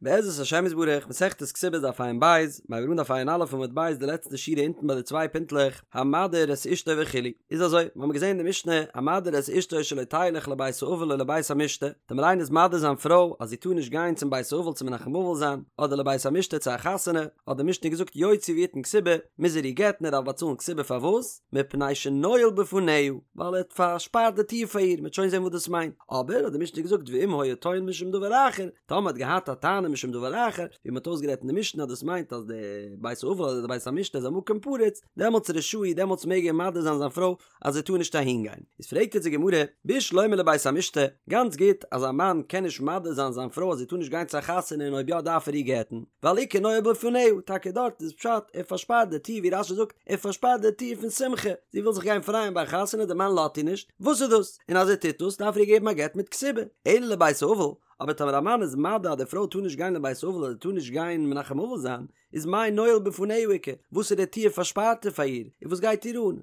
בעזרת השם יתברך, מסכת כתובות דף ע"ב, מיר הייבן אן דף ע"א עמוד ב' די לעצטע שורה אונטן ביי די צוויי פינטלעך, המדיר את אשתו וכו'. איז אזוי, מיר האבן געזען אין די משנה, המדיר את אשתו שלא תלך לבית האבל או לבית המשתה, טאמער איינער איז מדיר זיין פרוי אז זי טאר נישט גיין צום בית האבל צו מנחם אבל זיין, אדער לבית המשתה צו א חתונה, האט די משנה געזאגט יוציא ויתן כתובה, מוז ער איר גט'ן ער דארף באצאלן כתובה פארוואס? מפני שנועל בפניה, ווייל ער האט פארשפארט די טיר פאר איר, מ'וועט שוין זען וואס דאס מיינט, אבער האט די משנה געזאגט ואם היה טוען משום דבר אחר, טאמער האט געהאט א טענה משום דבר אחר, ווי מ'האט אויסגערעדט אין די משנה אז דאס מיינט אז די בית האבל אדער די בית המשתה איז א מקום פרוץ, דעמאלטס רשאי, דעמאלטס מעג ער מדיר זיין זיין פרוי אז זי טאר נישט אהין גיין. איז פרעגט יעצט די גמרא, בשלמא לבית המשתה, גאנץ גוט אז א מאן קען נישט מדיר זיין זיין פרוי אז זי טאר נישט גיין צו א חתונה און אויב יא דארף ער איר גט'ן, ווייל איכא נועל בפניה, טאקע דארט איז פשט ער פארשפארט די טיר ווי רש"י זאגט ער פארשפארט די טיר פון שמחה, זי וויל זיך גיין פרייען ביי א חתונה די מאן לאזט איר נישט, וואס איז דאס? און אז ער טוט דאס דארף ער איר געבן א גט מיט כתובה, אלא לבית האבל, אבער טאמער א מאן איז מדיר אז די פרוי טאר נישט גיין לבית האבל אדער טאר נישט גיין מנחם אבל זיין, איז מאי נועל בפניה איכא, וואסערע טיר פארשפארט ער פאר איר, און וואס גייט איר אן,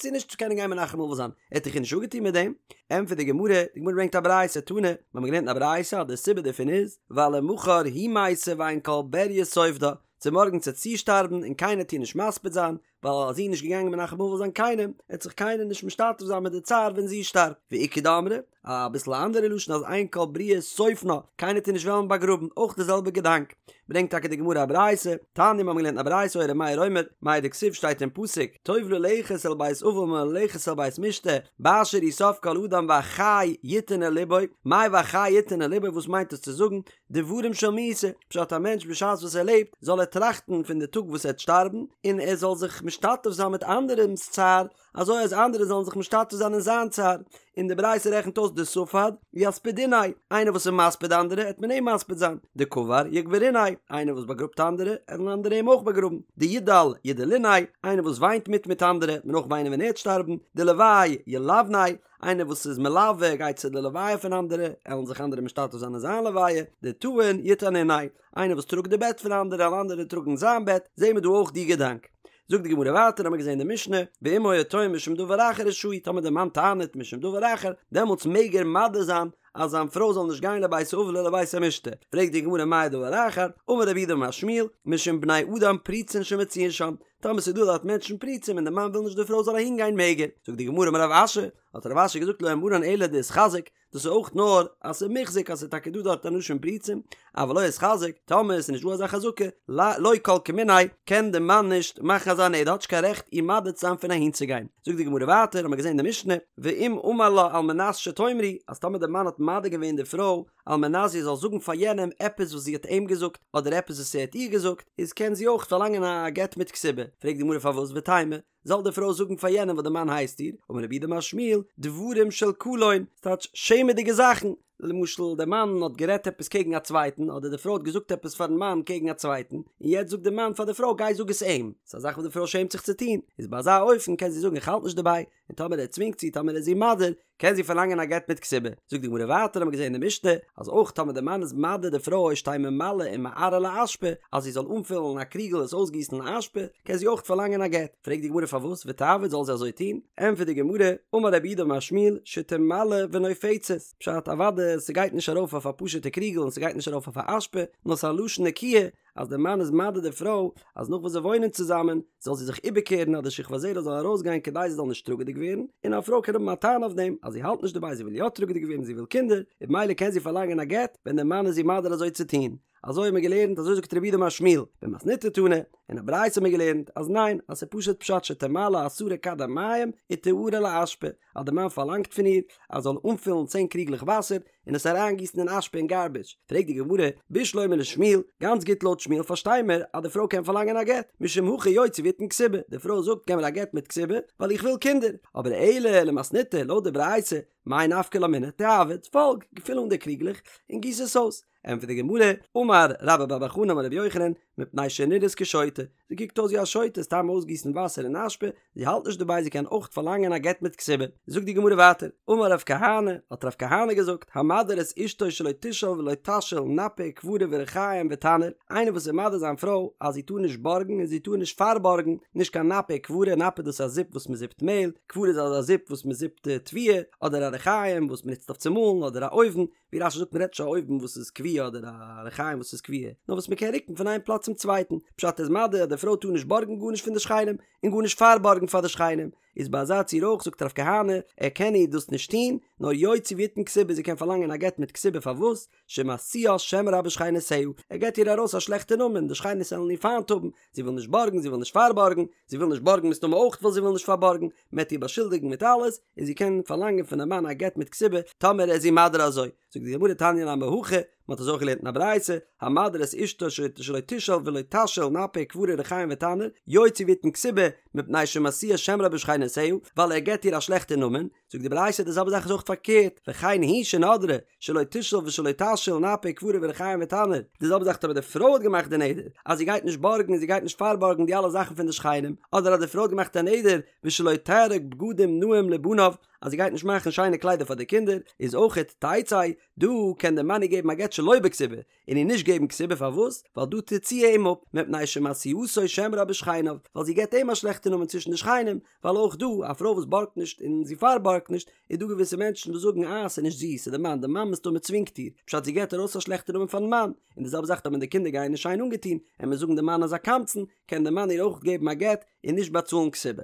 זי נישט צו קענען גיין מנחם אבל זיין, ער האט דאך איר נישט אפגעטון מיט דעם? ענטפערט די גמרא, די גמרא ברענגט א ברייתא, תנא, מיר האבן געלערנט אין א ברייתא אז די סיבה דערפון איז, ווייל למחר היא מתה ואין כל בריה סופדה, צומארגנס וועט זי שטארבן און קיינער וועט איר נישט מספיד זיין, ווייל אז זי איז נישט געגאנגען מנחם אבל זיין קיינעם, וועט זיך קיינער נישט משתתף זיין מיט די צער ווען זי שטארבט. ואיכא דאמרי, אביסל א אנדערע לשון אז אין כל בריה סופנה, קיינער וועט איר נישט וועלן באגראבן, אויך די זעלבע געדאנק. ברענגט טאקע די גמרא א ברייתא, תניא מיר האבן געלערנט א ברייתא היה ר' מאיר אומר, מאי דכתיב שטייט אין פסוק, טוב ללכת אל בית אבל מללכת אל בית משתה, באשר הוא סוף כל אדם והחי יתן אל לבו, מאי והחי יתן אל לבו וואס מיינט עס צו זאגן, דברים של מיתה, פשט א מענטש בשעת וואס ער לעבט זאל ער טראכטן פון די טאג וואס ער וועט שטארבן, און ער זאל זיך משתתף זיין מיט אנדערעמ'ס צער, אזוי אז אנדערע זאלן זיך משתתף זיין אין זיין צער, און די ברייתא רעכנט אויס דספד יספדוניה, איינער וואס איז מספיד אנדערע העט מען אים מספיד זיין, דקבר יקברוניה, איינער וואס באגראבט אנדערע עלן אנדערע אים אויך באגראבן, דידל ידלוניה, איינער וואס וויינט מיט מיט אנדערע העט מען אויך וויינען ווען ער העט שטארבן, דלוי ילויניה, איינער וואס איז מלווה גייט צו די לוויה פון אנדערע, עלן זיך אנדערע משתתף זיין אין זיין לוויה, דטעין יטענוניה, איינער וואס טראגט די בעט פון אנדערע עלן אנדערע טראגן זיין בעט, זעהן מיר דא אויך די געדאנק. זאגט די גמרא ווייטער האמיר געזעהן די משנה, ואם היה טוען משום דבר אחר רשאי, טאמער די מאן טענה'ט משום דבר אחר, דעמאלטס מעג ער מדיר זיין אז זיין פרוי זאל נישט גיין לבית האבל ולבית המשתה, פרעגט די גמרא מאי דבר אחר, אמר רב יהודה אמר שמואל, משום בני אדם פרוצין שמצויין שם, טאמער ס'איז דא דארט מענטשן פרוצים און די מאן וויל נישט די פרוי זאל אהין גיין מעג ער, זאגט די גמרא אמר רב אשי, האט רב אשי געזאגט לא אמרן אלא דאיתחזק, דאס איז אויך נאר אז ס'איז מוחזק אז ס'איז טאקע דא דארט אנשים פרוצים, אבל לא איתחזק, טאמער ס'איז נישט דא אזא חזקה, לא כל כמיניה, קען די מאן נישט מאכן אזא נדר, האט נישט קיין רעכט איר מדיר צו זיין פון אהין צו גיין. זאגט די גמרא ווייטער, האמיר געזען אין די משנה, ואם אמר לה על מנת שתאמרי, אז טאמער די מאן האט מדיר געווען די פרוי, על מנת זי זאל זאגן פאר יענעם עפעס וואס זי האט אים געזאגט, אדער עפעס וואס ער האט איר געזאגט, איז קען זי אויך פארלאנגען א גט מיט כתובה. פרעגט די גמרא פארוואס ותימא, זאל די פרוי זאגן פאר יענעם וואס די מאן הייסט איר, אמר רב יהודה אמר שמואל, דברים של קלון, ס'טייטש שעמעדיגע זאכן, למשל די מאן האט גערעדט עפעס קעגן א צווייטן, אדער די פרוי האט געזאגט עפעס פארן מאן קעגן א צווייטן, און יעצט זאגט די מאן פאר די פרוי גיי זאג עס אים, ס'איז א זאך וואס די פרוי שעמט זיך צו טון, איז ביי אזא אופן קען זי זאגן איך האלט נישט דערביי, און טאמער ער צווינגט זי, טאמער ער איז איר מדיר, קען זי פארלאנגען א גט מיט כתובה. זאגט די גמרא ווייטער האבן מיר געזען אין די משנה, אז אויך טאמער די מאן איז מדיר די פרוי שתהא ממלאה ומערה לאשפה, אז זי זאל אנפילן א קריגל עס אויסגיסן אין אשפה, קען זי אויך פארלאנגען א גט. פרעגט די גמרא פארוואס ותעביד זאל זי אזוי טון? ענטפערט די גמרא, אמר רב יהודה אמר שמואל, שתמלא ונופצת, פשט אוודאי ס'גייט נישט ארויף אויף א פשוטע קריגל און ס'גייט נישט ארויף אויף א אשפה, נאר ס'איז א לשון נקיה, אז דער מאן איז מדיר די פרוי אז נאך וואס זיי וואוינען צוזאמען זאל זי זיך איבערקערן אז די שכבת זרע זאל ארויסגיין כדי זי זאל נישט טראגעדיג ווערן, און א פרוי קען האבן א טענה אויף דעם אז זי האלט נישט דערביי זי וויל יא טראגעדיג ווערן זי וויל קינדער, און במילא קען זי פארלאנגען א גט ווען דער מאן איז איר מדיר אזוי צו טון. אזוי האט מען געלערנט אזוי זאגט רב יהודה אמר שמואל, במתניתא תנא, אין א ברייתא האט מען געלערנט אז ניין אז ס'איז פשוט פשט שתמלא עשרה כדי מים ותערה לאשפה, אז דער מאן פארלאנגט פון איר אז זי זאל אנפילן צען קריגלעך וואסער און עס אריינגיסן אין אשפה אין גארביטש, פרעגט די גמרא, בשלמא לשמואל, גאנץ גוט לויט שמואל פארשטיי מיר אז די פרוי קען פארלאנגען א גט, משום הכי יוציא ויתן כתובה, די פרוי זאגט געב מיר א גט מיט כתובה ווייל איך וויל קינדער, אבער אלא למתניתא לויט די ברייתא, מאי נפקא לה מינה, תיעביד, פאלג, פיל אן די קריגלעך און גיס עס אויס, ענטפערט די גמרא, אמר רבה בר בר חנה אמר רבי יוחנן, מפני שנראית כשוטה, זי קוקט אויס ווי א שוטה, סתם אויסגיסן וואסער אין אשפה, זי האלט נישט דערביי זי קען אויך פארלאנגען א גט מיט כתובה. זאגט די גמרא ווייטער, אמר רב כהנא, האט רב כהנא געזאגט, המדיר את אשתו שלא תשאל ולא תשאיל נפה וכברה וריחים ותנור, איינער וואס איז מדיר זיין פרוי אז זי טאר נישט בארגן און זי טאר נישט פארבארגן, נישט קיין נפה וכברה, נפה דאס איז א זיפ וואס מען זיפט מעהל, כברה איז אזא זיפ וואס מען זיפט תבואה, אדער א ריחים וואס מען נוצט אויף צו מאלן, אדער א אויוון, ווי רש"י זאגט מ'רעדט נישט א אויוון וואס איז קבוע אדער א רחיים וואס איז קבוע, נאר וואס מ'קען רוקן פון איין פלאץ צום צווייטן, פשט איז מדיר אז די פרוי טאר נישט בארגן גארנישט פון די שכנים, און גארנישט פארבארגן פאר די שכנים, איז ביי אזא ציור אויך זאגט רב כהנא ער קען איר דאס נישט טון, נאר יוציא ויתן כתובה זי קען פארלאנגען א גט מיט כתובה פארוואס? שמשיאה שם רע בשכנותיה, ער געט איר ארויס א שלעכטע נאמען, די שכנות וועלן איר פיינט האבן, זי וויל נישט בארגן, זי וויל נישט פארבארגן, זי וויל נישט בארגן מסתמא אויך ווייל זי וויל נישט פארבארגן, מען וועט איר באשולדיגן מיט אלעס, און זי קען פארלאנגען פונעם מאן א גט מיט כתובה, טאמער ער איז איר מדיר אזוי. זאגט די גמרא תניא נמי הכי, מען האט אזוי אויך געלערנט אין א ברייתא, המדיר את אשתו שלא תשאל ולא תשאיל נפה וכברה ריחים ותנור, יוציא ויתן כתובה, מפני שמשיאה שם רע בשכנותיה, ווייל ער געט איר א שלעכטע נאמען, זאגט די ברייתא די זעלבע זאך איז אויך פארקערט, וכן היא שנדרה, שלא תשאל ושלא תשאיל נפה וכברה וריחים ותנור, די זעלבע זאך טאמער די פרוי האט געמאכט די נדר אז זי גייט נישט בארגן און זי גייט נישט פארבארגן די אלע זאכן פון די שכנים, אדער אז די פרוי האט געמאכט א נדר ושלא תארוג בגדים נאים לבניו אז זי גייט נישט מאכן שיינע קליידער פאר די קינדער, איז אויכעט תצא, דא קען די מאן איר געבן א גט שלא בכתובה, און איר נישט געבן כתובה פארוואס? ווייל דא טוט זי אים אפ, מפני שמשיאתו שם רע בשכניו, ווייל זי געבט אים א שלעכטע נאמען צווישן די שכנים, ווייל אויך דא, א פרוי וואס בארגט נישט און זי פארבארגט נישט, איז דא געוויסע מענטשן וואס זאגן אה ס'איז נישט זי, ס'איז די מאן, די מאן מסתמא צווינגט איר, פשט זי געבט ארויס א שלעכטע נאמען פארן מאן, און די זעלבע זאך טאמער די קינדער גייען נישט שיין אנגעטון, און מיר זאגן די מאן איז א קמצן, קען די מאן איר אויך געבן א גט און נישט באצאלן כתובה.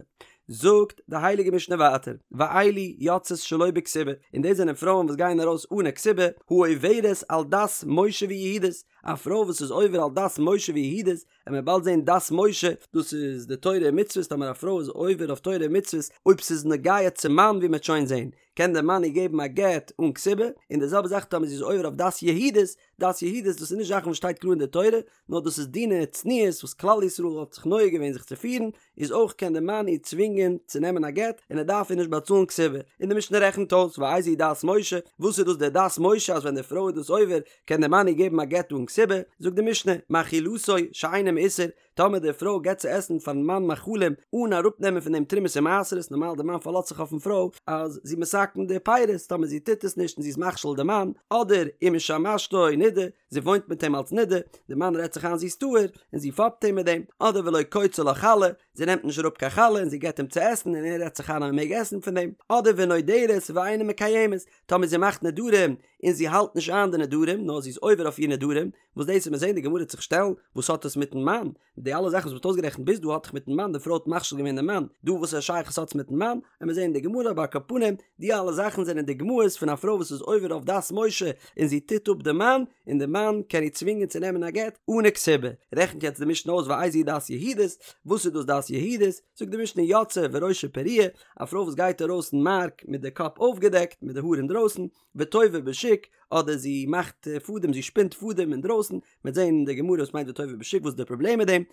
זאגט די הייליגע משנה ווייטער, ואלו יוצאות שלא בכתובה, און דאס זענען פרויען וואס גייען ארויס אן א כתובה, העוברת על דת משה ויהודית, א פרוי וואס איז עובר על דת משה ויהודית, וועט מען באלד זען דת משה, דאס איז די תורה און מצוות, טאמער א פרוי איז עובר אויף תורה און מצוות, אויב ס'איז נוגע צום מאן ווי מ'וועט שוין זען, קען דער מאן איר געבן א גט אן כתובה, און די זעלבע זאך טאמער זי איז עובר אויף דת יהודית, דת יהודית דאס איז נישט זאכן וואס שטייט קלאר אין די תורה, נאר דאס איז דיני צניעות וואס כלל ישראל האט זיך נוהג געווען זיך צו פירן, איז אויך קען די מאן איר צווינגען צו נעמען א גט און ער דארף איר נישט באצאלן כתובה, און די משנה רעכנט אויס ואיזו היא דת משה, וואס איז דאס די דת משה אז ווען די פרוי איז דאס עובר קען די מאן איר געבן א גט אן כתובה, זאגט די משנה, מאכילתו שאינו מעושר, טאמער די פרוי געבט צו עסן פארן מאן מאכלים אן אראפנעמען פון דעם תרומות און מעשרות, נארמאל די מאן פארלאזט זיך אויפן פרוי אז זי מתקן די פירות, טאמער זי טוט עס נישט און זי איז מכשיל די מאן, אדער ומשמשתו נידה, זי וואוינט מיט אים אלס נידה, די מאן רעדט זיך איין זי איז טהור, און זי פאפט אים מיט דעם, אדער ולא קוצה לה חלה, זי נעמט נישט אראפ קיין חלה און זי געבט אים צו עסן און ער רעדט זיך איין אז מען מעג עסן פון דעם, אדער ונודרת ואינה מקיימת, טאמער זי מאכט נדרים און זי האלט נישט איין די נדרים נאר זי איז עובר אויף איר נדרים, וואס דאס וועט מען זען די גמרא וועט זיך שטעלן, וואס האט עס מיטן מאן? די אלע זאכן וואס מ'האט אויסגערעכנט ביז דא האט דאך מיטן מאן, די פרוי האט מכשיל געווען די מאן, דא וואס א שייכות האט עס מיטן מאן? וועט מען זען אין די גמרא אבער על כל פנים, די אלע זאכן זענען דוגמאות פון א פרוי וואס איז עובר אויף דת משה און זי טוט אפ די מאן, און די מאן קען איר צווינגען צו נעמען א גט אנע כתובה. רעכנט יעצט די משנה אויס ואיזו היא דת יהודית, וואס איז דאס דת יהודית? זאגט די משנה יוצאה וראשה פרוע, א פרוי וואס גייט ארויס אין מארק מיט די קאפ אויפגעדעקט, מיט די האר אינדרויסן, וטווה בשוק, אדער זי מאכט פאדעם, זי שפינט פאדעם אינדרויסן, מ'וועט זען אין די גמרא וואס מיינט וטווה בשוק, וואס איז די פראבלעם מיט דעם,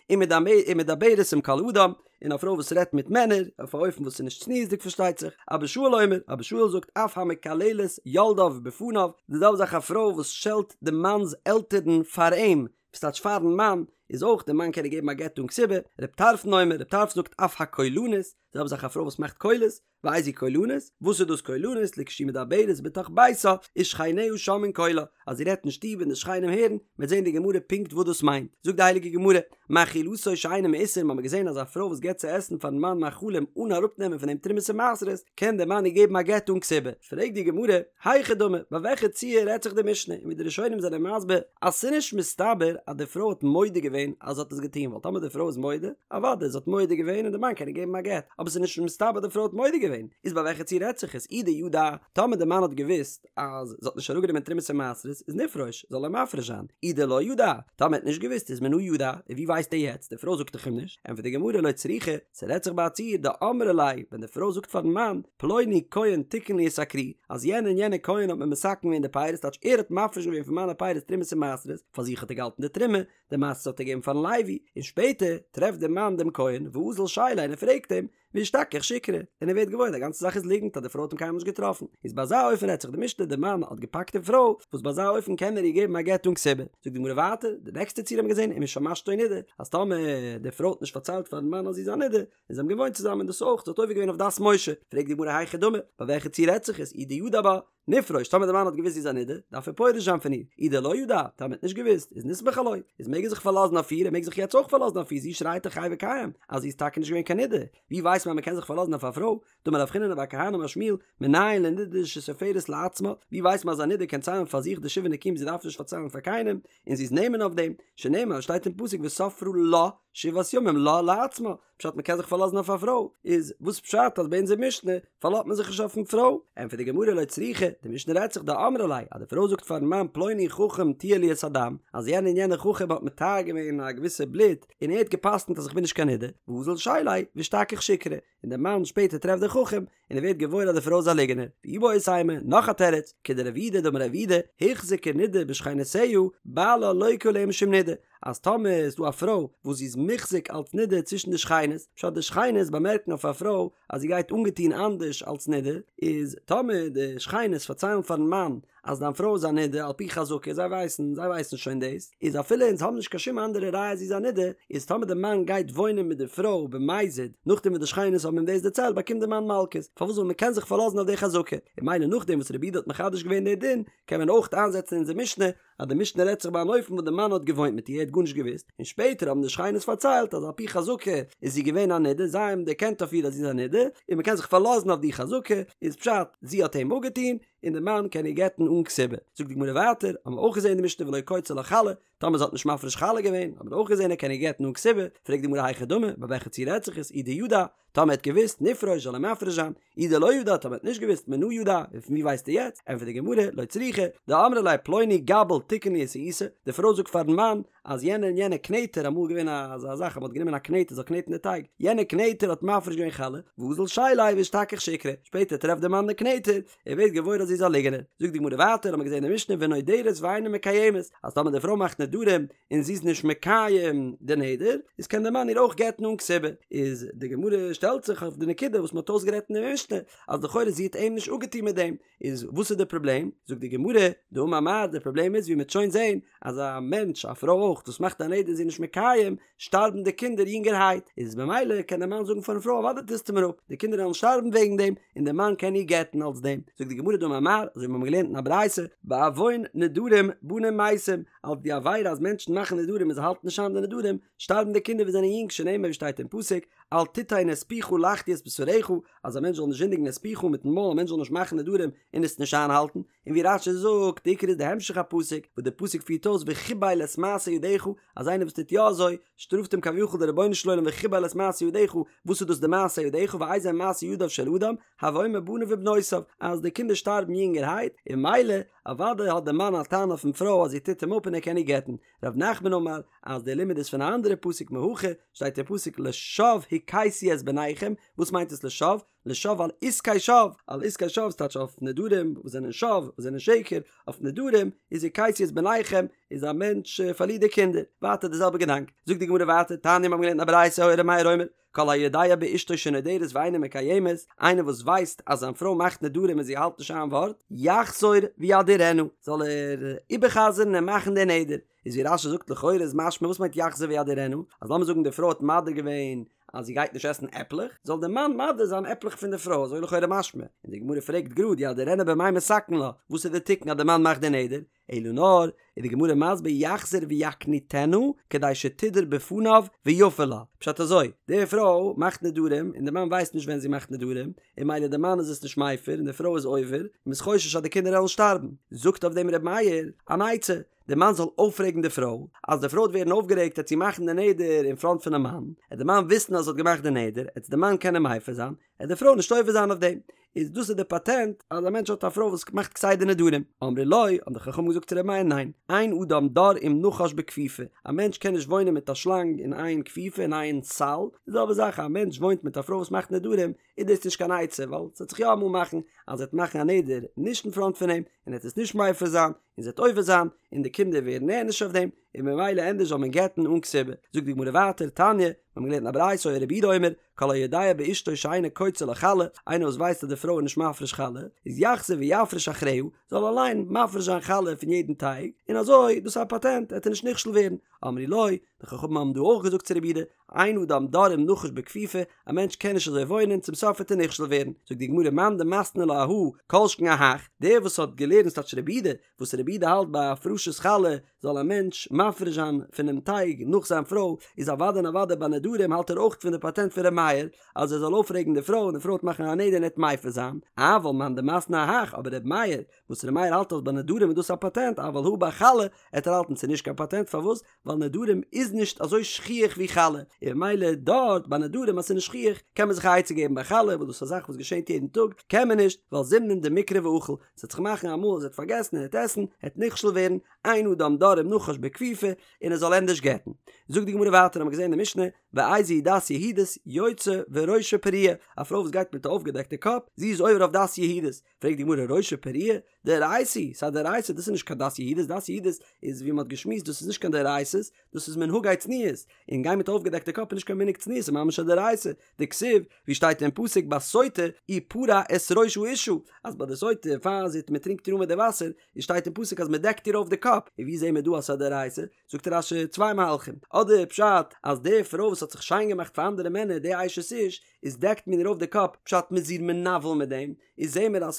ומדברת עם כל אדם, און א פרוי וואס רעדט מיט מענער, אויף א אופן וואס איז נישט צניעות'דיג פארשטייט זיך, אבא שאול אומר, אבא שאול זאגט אף המקללת יולדיו בפניו, די זעלבע זאך א פרוי וואס שעלט די מאנ'ס עלטערן פאר אים, וואס טייטש פאר'ן מאן, איז אויך די מאן קען איר געבן א גט אן כתובה, רב טרפון אומר, רב טרפון זאגט אף הקולנית, די זעלבע זאך א פרוי וואס מאכט קולות, ואיזו קולנית, וואס איז דאס קולנית, לכשהיא מדברת בתוך ביתה, ושכניה שומעין קולה, אז זי רעדט אין שטוב און די שכנים הערן, מ'וועט זען אין די גמרא פונקט וואס דאס מיינט. זאגט די הייליגע גמרא, מאכילתו שאינו מעושר, מ'האמיר געזען אז א פרוי וואס געבט צו עסן פארן מאן מאכלים אן אראפנעמען פון דעם תרומות און מעשרות, קען דער מאן איר געבן א גט אן כתובה. פרעגט די גמרא, היכי דמי, ביי וועלכע ציור רעדט זיך די משנה, און ווי די ראשונים זענען מסביר אז ס'איז נישט מסתבר אז די פרוי האט מודה געווען אז זי האט עס געטון, ווייל טאמער די פרוי איז מודה, אוודאי זי האט מודה געווען און די מאן קען איר געבן א גט, אבער ס'איז נישט מסתבר די פרוי האט מודה געווען, איז ביי וועלכע ציור רעדט זיך עס, אי דידע, טאמער די מאן האט געוואוסט אז זי האט נישט אראפגענומען תרומות און מעשרות, איז נפרוש, זאל ער מפריש זיין, אי דלא ידע, טאמער ער האט נישט געוואוסט איז מנא ידע, און ווי ווייסט ער יעצט, די פרוי זאגט דאך אים נישט, ענטפערט די גמרא לא צריכא, ס'רעדט זיך ביי א ציור דאמרה ליה, ווען די פרוי זאגט פארן מאן, פלוני כהן תיקן לי את הכרי, אז יענער און יענער כהן האט מיר מתקן געווען די פירות, טייטש ער האט מפריש געווען פון מיינע פירות תרומות און מעשרות, פאר זיך האט ער געהאלטן די תרומה, די מעשרות האט ער געגעבן פארן לוי, און שפעטער טרעפט דער מאן דעם כהן, ואזיל שייליה און ער פרעגט אים, ואשתכח שיקרא, און ער ווערט געוואויר די גאנצע זאך איז ליגנט אז די פרוי האט אים קיינמאל נישט געטראפן, איז ביי אזא אופן רעדט זיך די משנה די מאן האט געפאקט די פרוי, וואס ביי אזא אופן קען ער איר געבן א גט אן כתובה, זאגט די גמרא ווייטער, די נעקסטע ציור האבן מיר געזען ומשמשתו נידה, אז טאמער די פרוי האט נישט פארציילט פארן מאן אז זי איז א נידה, און זיי האבן געוואוינט צוזאמען דאס אויך, זי האט עובר געווען אויף דת משה, פרעגט די גמרא היכי דמי, ביי וועלכע ציור רעדט זיך עס, אי דידע בה, נפרוש, טאמער די מאן האט געוואוסט זי איז א נידה, דארף ער פורש זיין פון איר, אי דלא ידע, טאמער האט נישט געוואוסט, איז נסמוך עילויה, איז מעג ער זיך פארלאזן אויף איר, ער מעג זיך יעצט אויך פארלאזן אויף איר, זי שרייט דאך חי וקיים, אז זי איז טאקע נישט געווען קיין נידה, ווי ווייסט מען? ווייסט מען אז מ'קען זיך פארלאזן אויף א פרוי? דאמר רב חיננא בר כהנא אמר שמואל, מנין לנידה שסופרת לעצמה, ווי ווייסט מען אז א נידה קען ציילן פאר זיך די שבעה נקיים זי דארף נישט פארציילן פאר קיינעם, און זי איז נאמן אויף דעם, שנאמר שטייט אין פסוק וספרה לה שבעת ימים לה לעצמה, פשט מ'קען זיך פארלאזן אויף א פרוי, איז וואס פשט אז ביי אונזער משנה פארלאזט מען זיך נישט אויפן פרוי? ענטפערט די גמרא לא צריכא, די משנה רעדט זיך דאמרה ליה, אז די פרוי זאגט פארן מאן פלוני חכם טיהר לי את הדם, אז יענער און יענער חכם האט מטהר געווען א געוויסע בלוט, און ער האט גע'פסק'נט אז איך בין נישט קיין נידה, ואזיל שיליה ואשתכח שיקרא, און דער מאן שפעטער טרעפט די חכם, און ער ווערט געוואויר אז די פרוי איז א ליגענער. ואיבעית אימא, נאך א תירוץ, כדרב יהודה דאמר רב יהודה, הוחזקה נידה בשכנותיה, בעלה לוקה עליה משום נידה, אז טאמער איז דא א פרוי וואס זי איז מוחזק אלס נידה צווישן די שכינות, פשט די שכינות באמערקן אויף א פרוי אז זי גייט אנגעטון אנדערש אלס נידה, איז טאמער די שכינות פארציילן פארן מאן אז דיין פרוי איז א נידה על פי חזקה, זיי ווייסן, זיי ווייסן שוין דאס, איז אפילו אונז האבן נישט קיין שום אנדערע ראיה אז זי איז א נידה, איז טאמער די מאן גייט וואוינען מיט די פרוי במזיד, נאכדעם וואס די שכינות האבן אים דאס דערציילט באקומט די מאן מלקות, פארוואס ווייל מען קען זיך פארלאזן אויף די חזקה, און ממילא נאכדעם וואס רב יהודה האט מחדש געווען די דין, קען מען אויך איינזעצן אונזער משנה, אז די משנה רעדט זיך ביי אן אופן וואס די מאן האט געוואוינט מיט איר ער האט גארנישט געוואוסט, און שפעטער האבן די שכינות פארציילט אז על פי חזקה איז זי געווען א נידה, זיי האבן דערקענט אויף איר אז זי איז א נידה, און מען קען זיך פארלאזן אויף די חזקה, איז פשט, זי האט אים אפגעטון, און די מאן קען איר גט'ן אן כתובה. זאגט די גמרא ווייטער, האבן מיר אויך געזען אין די משנה ולא קוצה לה חלה, טאמער זי האט נישט מפריש חלה געווען, האבן מיר אויך געזען ער קען איר גט'ן אן כתובה, פרעגט די גמרא היכי דמי, ביי וועלכע ציור רעדט זיך עס, אי דידע, טאמער ער האט געוואוסט, נפרוש זאל ער מפריש זיין, אי דלא ידע, טאמער ער האט נישט געוואוסט, מנא ידע, און פון ווי ווייסט ער יעצט, ענטפערט די גמרא, לא צריכא, דאמרה ליה פלוני גבל תיקן לי את העיסה, די פרוי זאגט פארן מאן, אז יענער און יענער קנעטער, אמאל געווען אזא זאך אז מ'האט גענומען א קנעטער זאל קנעטן די טייג, יענער קנעטער האט מפריש געווען חלה, ואזיל שיליה ואשתכח שיקרא, שפעטער טרעפט דער מאן די קנעטער, ער ווערט געוואויר אז זי איז א ליגענער. זאגט די גמרא ווייטער, האמיר געזען אין די משנה ונודרת ואינה מקיימת, אז טאמער די פרוי מאכט נדרים און זי איז נישט מקיים די נדר, איז קען דער מאן איר אויך גט'ן אן כתובה. איז די גמרא שטעלט זיך אויף די נקודה וואס מ'האט אויסגערעדט אין די משנה, אז לכאורה זי האט אים נישט אפגעטון מיט דעם, איז וואס איז די פראבלעם? זאגט די גמרא, דאמר מר, די פראבלעם איז ווי מ'וועט שוין זען, אז א מענטש, א פרוי אויך, וואס מאכט א נדר און זי איז נישט מקיים, שטארבן די קינדער יונגערהייט, איז במילא קען דער מאן זאגן פארן פרוי אוודאי טוסטו מיר אפ, די קינדער וועלן שטארבן וועגן דעם, און דער מאן קען איר גט'ן אלס דעם. זאגט די גמרא דאמר מר, אזוי ווי מיר האבן געלערנט אין א ברייתא, בעוון נדרים בנים מתים, אלס די עבירה אז מענטשן מאכן נדרים און זיי האלטן נישט איין די נדרים, שטארבן די קינדער וואס זענען יונג שנאמר ווי שטייט אין פסוק, אל תתן את פיך להחטיא את בשרך, אז א מענטש זאל נישט זינדיגן את פיך מיטן מויל, א מענטש זאל נישט מאכן נדרים און עס נישט איינהאלטן, און ווי רש"י זאגט, די עיקר איז די המשך הפסוק, וואס די פסוק פירט אויס וחיבל את מעשה ידיך, אז איינער וואס טוט יא אזוי, שטראפט אים כביכול דער רבונו של עולם וחיבל את מעשה ידיך, וואס איז דאס די מעשה ידיך ואיזה מעשה ידיו של אדם, הוי אומר בניו ובנותיו, אז די קינדער שטארבן יונגערהייט, און ממילא, אוודאי האט דער מאן א טענה אויפן פרוי אז זי טוט אים אפ און ער קען איר גט'ן, ר' נחמן אמר, אז דער לימוד איז פון א אנדערע פסוק מהכא, שטייט אין פסוק לשוא הכיתי את בניכם, וואס מיינט עס לשוא? לשוא על עסקי שוא, על עסקי שוא ס'טייטש אויף נדרים וואס זענען שוא, וואס זענען שקר, אויף נדרים איז הכיתי את בניכם, איז א מענטש פארלירט די קינדער, ווייטער די זעלבע געדאנק, זאגט די גמרא ווייטער, תניא מיר האבן געלערנט א ברייתא היה ר' מאיר אומר, כל היודע באשתו שנודרת ואינה מקיימת, איינער וואס ווייסט אז זיין פרוי מאכט נדרים און זי האלט נישט איין ווארט, יחזור וידירנה, זאל ער איבערחזר'ן און מאכן די נדר, איז ווי רש"י זאגט לכאורה איז משמע וואס מיינט יחזור וידירנה, אז לאמיר זאגן די פרוי האט מדיר געווען אז זי גייט נישט עסן עפלעך, זאל די מאן מדיר זיין עפלעך פון די פרוי, אזוי לכאורה משמע, און די גמרא פרעגט גראד ידירנה במאי מתקן לה, וואס איז די תיקון אז די מאן מאכט די נדר, אלא נאר, איז די גמרא מסביר יחזור ויקניטנה כדי שתדור בפניו ויפר לה, פשט אזוי, די פרוי מאכט נדרים און די מאן ווייסט נישט ווען זי מאכט נדרים, און ממילא די מאן איז עס נישט מפר און די פרוי איז עובר, און מ'איז חושש אז די קינדער וועלן שטארבן, זאגט אויף דעם ר' מאיר אן עצה, די מאן זאל אויפרעגן די פרוי, אז די פרוי וועט ווערן אויפגערעגט עט זי מאכן די נדר אין פראנט פונעם מאן, עט די מאן וויסן אז זי האט געמאכט די נדר, עט די מאן קענען מפר זיין, עט די פרוי נישט עובר זיין אויף דעם. איז דאס איז די פאטענט אז א מענטש האט א פרוי וואס מאכט כסדר נדרים. אמרו לו, האבן די חכמים געזאגט צו ר' מאיר ניין, אין אדם דר עם נחש בכפיפה, א מענטש קען נישט וואוינען מיט א שלאנג אין איין כפיפה אין איין סל, די זעלבע זאך א מענטש וואוינט מיט א פרוי וואס מאכט נדרים, איז דאס נישט קיין עצה ווייל ס'וועט זיך יא אמאל מאכן אז זי וועט מאכן א נדר נישט אין פראנט פון אים און ער וועט עס נישט מפר זיין און זי וועט עובר זיין און די קינדער ווערן נענש אויף דעם און ממילא ענדערש זאל מען גט'ן אן כתובה. זאגט די גמרא ווייטער, תניא, מיר האבן געלערנט אין א ברייתא היה רבי יהודה אומר, כל היודע באשתו שאינה קוצה לה חלה, איינער וואס ווייסט אז די פרוי איז נישט מפריש חלה, איז יחזור ויפריש אחריה, זאל אליין מפריש זיין חלה פון יעדן טייג, און אזוי, דאס איז א פאטענט, וועט ער נישט נכשל ווערן. אמרו לו, די חכמים האבן דא אויך געזאגט צו רבי יהודה, אין אדם דר עם נחש בכפיפה, א מענטש קען נישט אזוי וואוינען, צום סוף וועט ער נכשל ווערן. זאגט די גמרא מאן דמתני לה אהא, כל שכן אהך, דער וואס האט געלערנט ס'טייטש רבי יהודה, וואס רבי יהודה האלט ביי הפרשת חלה זאל א מענטש מפריש זיין פונעם טייג נאך זיין פרוי, איז אוודאי און אוודאי ביי נדרים האלט ער אויך פון די פאטענט פון ר' מאיר אז ער זאל אויפרעגן די פרוי און די פרוי וועט מאכן א נדר און ער וועט מפר זיין, אבל מאן דמתני אהך, אבער ר' מאיר וואס ר' מאיר האלט אז ביי נדרים איז דאס א פאטענט אבל הא ביי חלה עט ער האלטן ס'איז נישט קיין פאטענט פארוואס ווייל נדרים איז נישט אזוי שכיח ווי חלה און ממילא דארט ביי נדרים אז ס'איז נישט שכיח קען מען זיך א עצה געבן ביי חלה וואס דאס איז א זאך וואס געשענט יעדן טאג קען מען נישט ווייל זימנין דמיקרי ואכיל ס'וועט זיך מאכן אמאל אז ער וועט פארגעסן און ער וועט עסן ער וועט נכשל ווערן אין אדם דר עם נחש בכפיפה און ער זאל ענדערש גט'ן זאגט די גמרא ווייטער האבן מיר געזען אין די משנה ואיזו היא דת יהודית יוצאה וראשה פרוע א פרוי וואס גייט מיט א אויפגעדעקטע קאפ זי איז עובר אויף דת יהודית פרעגט די גמרא ראשה פרוע דאורייתא היא, ס'איז א דאורייתא, דאס איז נישט קיין דת יהודית, דת יהודית איז ווי מ'האט געשמועסט דאס איז נישט קיין דאורייתא'ס, דאס איז מנהגי צניעות, און גיין מיט אויפגעדעקטע קאפ איז נישט קיין מנהג צניעות ס'איז ממש א דאורייתא, דכתיב, ווי שטייט אין פסוק בסוטה ופרע את ראש האשה, אז ביי די סוטה פאר זי מ'טרינקט איר אן מיט די וואסער, איז שטייט אין פסוק אז מ'דעקט איר אויף די קאפ, און ווי זעהן מיר דא אז ס'איז א דאורייתא? זאגט רש"י צוויי מהלכים, אדער פשט אז די פרוי וואס האט זיך שיין געמאכט פאר אנדערע מענער די אשת איש, איז דעקט מען איר אויף די קאפ, פשט מ'איז איר מנוול מיט דעם, איז זעהן מיר אז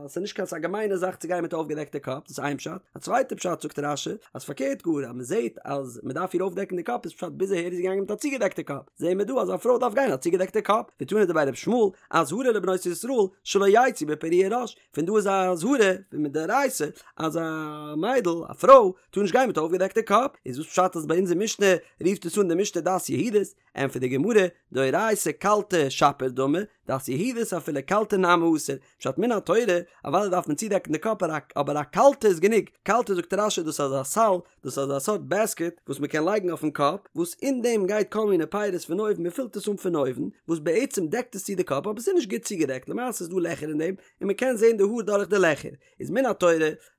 ס'איז נישט קיין ס'איז א געמיינע זאך צו גיין מיט א אויפגעדעקטע קאפ, דאס איז איין פשט, א צווייטע פשט זאגט רש"י, אז פארקערט גאר אז מ'זעהט אז מ'דארף איר אויפדעקן די קאפ איז פשט ביז אהער איז זי געגאנגען מיט א צוגעדעקטע קאפ, זעהן מיר דא אז א פרוי דארף גיין א צוגעדעקטע קאפ, ותנא דבי ר' ישמעאל, אזהרה לבנות ישראל שלא יצאו בפרוע ראש, פון דא איז א אזהרה פון מדאורייתא אז א מיידל, א פרוי, טאר נישט גיין מיט א אויפגעדעקטע קאפ, איז וואס פשט אז ביי אונזער משנה רופט עס אן די משנה דת יהודית? ענטפערט די גמרא, דאורייתא קלתה שפיר דמי, דת יהודית אפילו קלתה נמי אסור, פשט מן התורה, אוודאי דארף מען צודעקן די קאפ אבער א קלתה איז גענוג, קלתה זאגט רש"י דאס איז אזא סל, דאס איז אזא סארט בעסקעט וואס מען קען לייגן אויפן קאפ, וואס אין דעם גייט כל מיני פירות פון אויבן מען פילט עס אן פון אויבן, וואס בעצם דעקט עס צו די קאפ אבער עס איז נישט גוט צוגעדעקט למעשה איז דא לעכער אין דעם און מען קען זען די האר דורך די לעכער, איז מן התורה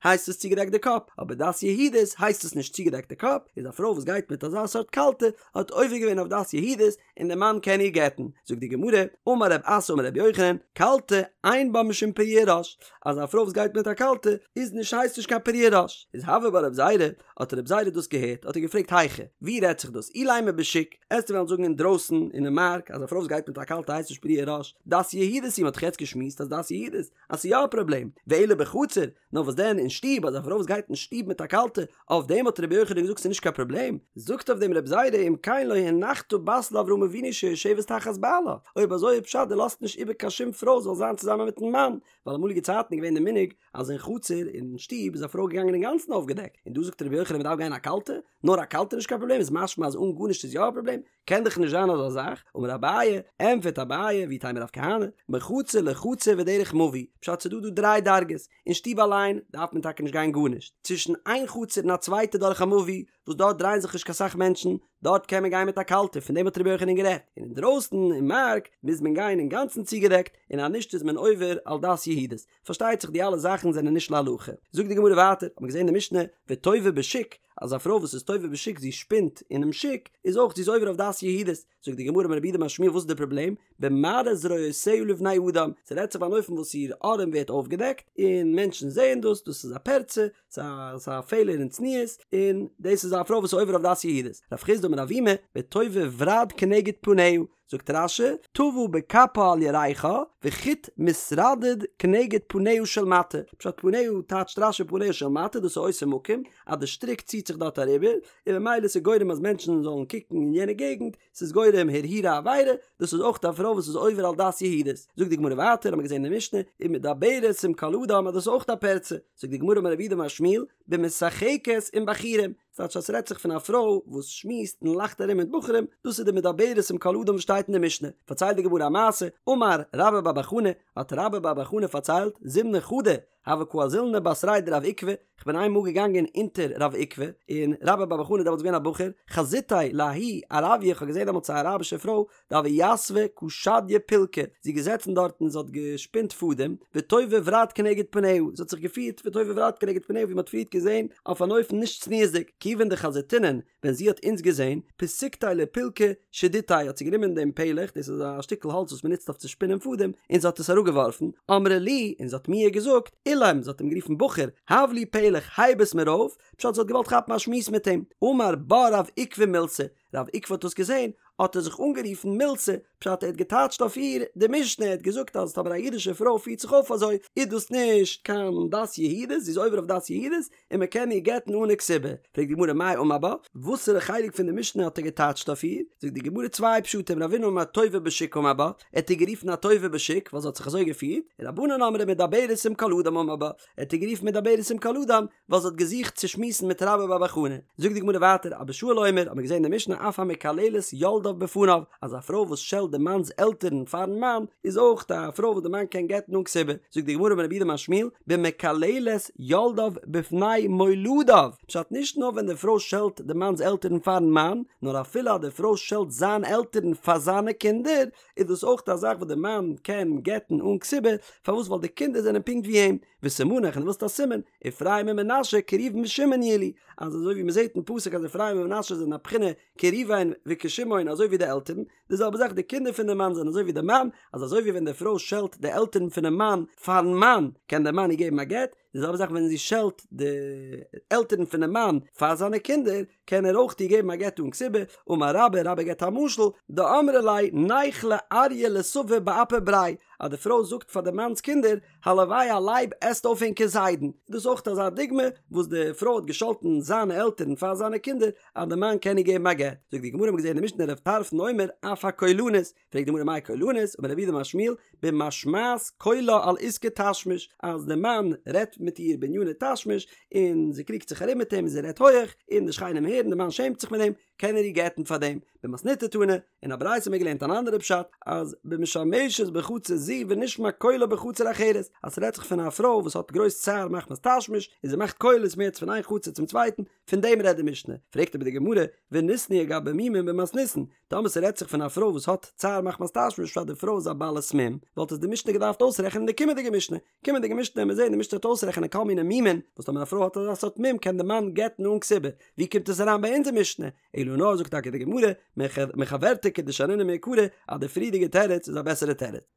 הייסט עס צוגעדעקט די קאפ, אבער דת יהודית הייסט עס נישט צוגעדעקט די קאפ, איז א פרוי וואס גייט מיט אזא סארט קלתה האט עובר געווען אויף דת יהודית און די מאן קען איר גט'ן, זאגט די גמרא, אמר רב אסי אמר רבי יוחנן, קלתה אין בה משום פרוע ראש, אז א פרוי וואס גייט מיט א קלתה איז נישט הייסט נישט קיין פרוע ראש, איז הוה בה רב זירא, האט רב זירא דאס געהערט האט ער געפרעגט היכא, ווי רעדט זיך דאס, אילימא בשוק, עסטו וועלן זאגן אינדרויסן אינעם מארק אז א פרוי וואס גייט מיט א קלתה הייסט נישט פרוע ראש, דת יהודית היא, מען האט דאך יעצט געשמועסט אז דת יהודית אז ס'איז יא א פראבלעם, ואלא בחצר, נאר וואס דען אין שטוב, אז א פרוי וואס גייט אין שטוב מיט א קלתה, אויף דעם האט רבי יוחנן געזאגט ס'איז נישט קיין פראבלעם, זאגט אויף דעם רבי זירא אם כן לא הנחת בת לאברהם אבינו שיושבת תחת בעלה, אויב אזוי איז פשט דו לאזט נישט איבער קיין שום פרוי זאל זיין צוזאמען מיטן מאן, ווייל אמאליגע צייטן איז געווען די מנהג אז אין חצר אין שטוב איז א פרוי געגאנגען אינגאנצן אויפגעדעקט, און דא זאגט רבי יוחנן מ'דארף גיין א קלתה, נאר א קלתה איז נישט קיין פראבלעם איז משמע אז אן גארנישט איז יא א פראבלעם, קען דאך נישט זיין אזא זאך, אמר אביי, ענטפערט אביי, ואיתימא רב כהנא, מחצר לחצר ודרך מבוי, פשט ס'דא דא דריי דרגות, אין שטוב אליין דארף מען טאקע נישט גיין גארנישט, צווישן איין חצר און א צווייטע דורך א מבוי, וואס דארט דרייען זיך נישט קיין סאך מענטשן, דארט קען מען גיין מיט א קלתה, פון דעם האט רבי יוחנן גערעדט, און אינדרויסן אין מארק מוז מען גיין אינגאנצן צוגעדעקט, און אז נישט איז מען עובר על דת יהודית. פארשטייט זיך די אלע זאכן זענען נישט להלכה. זאגט די גמרא ווייטער, האט מען געזען אין די משנה, וטווה בשוק, אז א פרוי וואס איז טווה בשוק זי שפינט אינעם שוק, איז אויך זי איז עובר אויף דת יהודית. זאגט די גמרא אמר רב יהודה אמר שמואל וואס איז די פראבלעם? במראה זרועותיה לבני אדם, ס'רעדט זיך ביי אן אופן וואס איר ארעם ווערט אויפגעדעקט, און מענטשן זעען דאס, דאס איז א פרצה, ס'איז א פעלער אין צניעות, און דאס איז א פרוי וואס איז עובר אויף דת יהודית. רב חסדא אמר אבימי, וטווה ברד כנגד פניה, זאגט רש"י, טווה בכפה על ירכה, וחוט מתרדד כנגד פניה של מטה, פשט פניה טייטשט רש"י פניה של מטה דאס איז אותו מקום, אז די שטריק ציט זיך דארט אריבער, און ממילא ס'איז גורם אז מענטשן זאלן קוקן אין יענע געגנט, ס'איז גורם הרהורי עבירה, דאס איז אויך א פרוי וואס איז עובר על דת יהודית. זאגט די גמרא ווייטער, האמיר געזען אין די משנה, ומדברת עם כל אדם אז דאס איז אויך א פרצה, זאגט די גמרא אמר רב יהודה אמר שמואל, במשחקת עם בחורים, ס'טייטש אז ס'רעדט זיך פון א פרוי וואס שמועסט און לאכט ארום מיט בחורים, דאס איז די מדברת עם כל אדם וואס שטייט אין די משנה. פארציילט די גמרא א מעשה, אמר רבה בר בר חנה, האט רבה בר בר חנה פארציילט, זימנא חדא, הוה קא אזילנא בתריה דרב עוקבא, כ'בין איינמאל געגאנגען אונטער רב עוקבא, און רבה בר בר חנה איז דעמאלטס געווען א בחור, חזיתיה לההיא ערביא, כ'האב געזען דעמאלטס א אראבישע פרוי, דהוה יתבא קא שדיא פולקא, זי איז געזעצן דארט און זי האט געשפינט פאדעם, וטווה ברד כנגד פניה, זי האט זיך געפירט וטווה ברד כנגד פניה ווי מען האט פריערט געזען, אויף אן אופן נישט צניעות'דיג, כיוון דחזיתינן, ווען זי האט אונז געזען, פסיקתיה לפולקא שדיתיה, האט זי גענומען דעם פלך, דאס איז א שטיקל האלץ וואס מען נוצט אויף צו שפינען פאדעם, און זי האט עס אראפגעווארפן, אמרה לי, און זי האט מיר געזאגט, עילם, זי האט אים גערופן בחור, הב לי פלך, הייב עס מיר אויף, פשט זי האט געוואלט כאפן א שמועס מיט אים, אמר בה רב עוקבא מילתא, רב עוקבא האט דאס געזען, האט ער זיך אנגערופן מילתא, פשט ער האט געטייטשט אויף איר די משנה, ער האט געזאגט אז טאמער א אידישע פרוי פירט זיך אויף אזוי איז דאס נישט קיין דת יהודית, זי איז עובר אויף דת יהודית, און מען קען איר גט'ן אן א כתובה. פרעגט די גמרא מאי אמר בה, וואסערע חלק פון די משנה האט ער געטייטשט אויף איר? זאגט די גמרא צוויי פשטים, רבינא אמר טווה בשוק אמר בה, ער האט איר גערופן א טווה בשוק ווייל זי האט זיך אזוי געפירט, רבנן אמרי מדברת עם כל אדם אמר בה, ער האט איר גערופן מדברת עם כל אדם ווייל זי האט געזוכט צו שמועסן מיט רבה בר בר חנה. זאגט די גמרא ווייטער, אבא שאול אומר, האט מען געזען אין די משנה אף המקללת יולדיו בפניו, אז א פרוי וואס שעלט די מאנ'ס עלטערן פאר'ן מאן, איז אויך א פרוי וואס די מאן קען גט'ן אן כתובה. זאגט די גמרא אמר רב יהודה אמר שמואל, במקללת יולדיו בפני מולדיו, פשט נישט נאר ווען די פרוי שעלט די מאנ'ס עלטערן פאר'ן מאן, נאר אפילו אז די פרוי שעלט זיין עלטערן פאר זיינע קינדער, איז דאס אויך א זאך וואס די מאן קען גט'ן אן כתובה, פארוואס ווייל די קינדער זענען פונקט ווי אים, וסימנך און דו ווילסט א סימן, אפרים ומנשה כראובן ושמעון יהיו לי, אז אזוי ווי מען זעט אין פסוק אז אפרים און מנשה זענען א בחינה כראובן וכשמעון אזוי ווי די עלטערן, די זעלבע זאך די קינדער פון די מאן זענען אזוי ווי די מאן, אז אזוי ווי ווען די פרוי שעלט די עלטערן פונעם מאן פארן מאן קען דער מאן איר געבן א גט, די זעלבע זאך ווען זי שעלט די עלטערן פונעם מאן פאר זיינע קינדער קען ער אויך איר געבן א גט אן כתובה, אמר רבה, רבה געבט א משל, דאמרה ליה ניכלה אריא לסבא באפי בריה, אז די פרוי זאגט פאר די מאנ'ס קינדער, הלוואי א לייב עסט אויף ענקער זיידן, איז דאס אויך אזא דוגמא וואס די פרוי האט געשאלטן זיינע עלטערן פאר זיינע קינדער אז די מאן קען איר געבן א גט, זאגט די גמרא מ'האט געזען אין די משנה רב טרפון אומר אף הקולנית, פרעגט די גמרא מאי קולנית, אמר רב יהודה אמר שמואל, במשמעת קולה על עסקי תשמיש, אז די מאן רעדט מיט איר בעניני תשמיש, און זי קריגט זיך ארום מיט אים און זי רעדט הויעך, און די שכנים הערן, די מאן שעמט זיך מיט דעם, קען ער איר גט'ן פאר דעם. במתניתא תנא, אין א ברייתא האט מען געלערנט אן אנדערע פשט, אז במשמשת בחצר זו ונשמע קולה בחצר אחרת, אז ס'רעדט זיך פון א פרוי וואס האט גרויס צער מחמת תשמיש, און זי מאכט קולות מער פון איין חצר צום צווייטן, פון דעם רעדט די משנה. פרעגט אבער די גמרא, וניתנייה גבי מומין במתניתין, טאמער ס'רעדט זיך פון א פרוי וואס האט צער מחמת תשמיש פשט די פרוי איז א בעלת מום, וואלט עס די משנה געדארפט אויסרעכענען אין די קומענדיגע משנה. קומענדיגע משנה וועלן מיר זעהן די משנה וועט אויסרעכענען כל מיני מומין, וואס טאמער א פרוי האט אזא סארט מום קען די מאן גט'ן אן כתובה. ווי קומט עס אריין ביי אונזער משנה? אלא נאר זאגט טאקע די גמרא, מחוורתא כדשנינן מעיקרא, אז די פריערדיגע תירוץ איז א בעסערע תירוץ.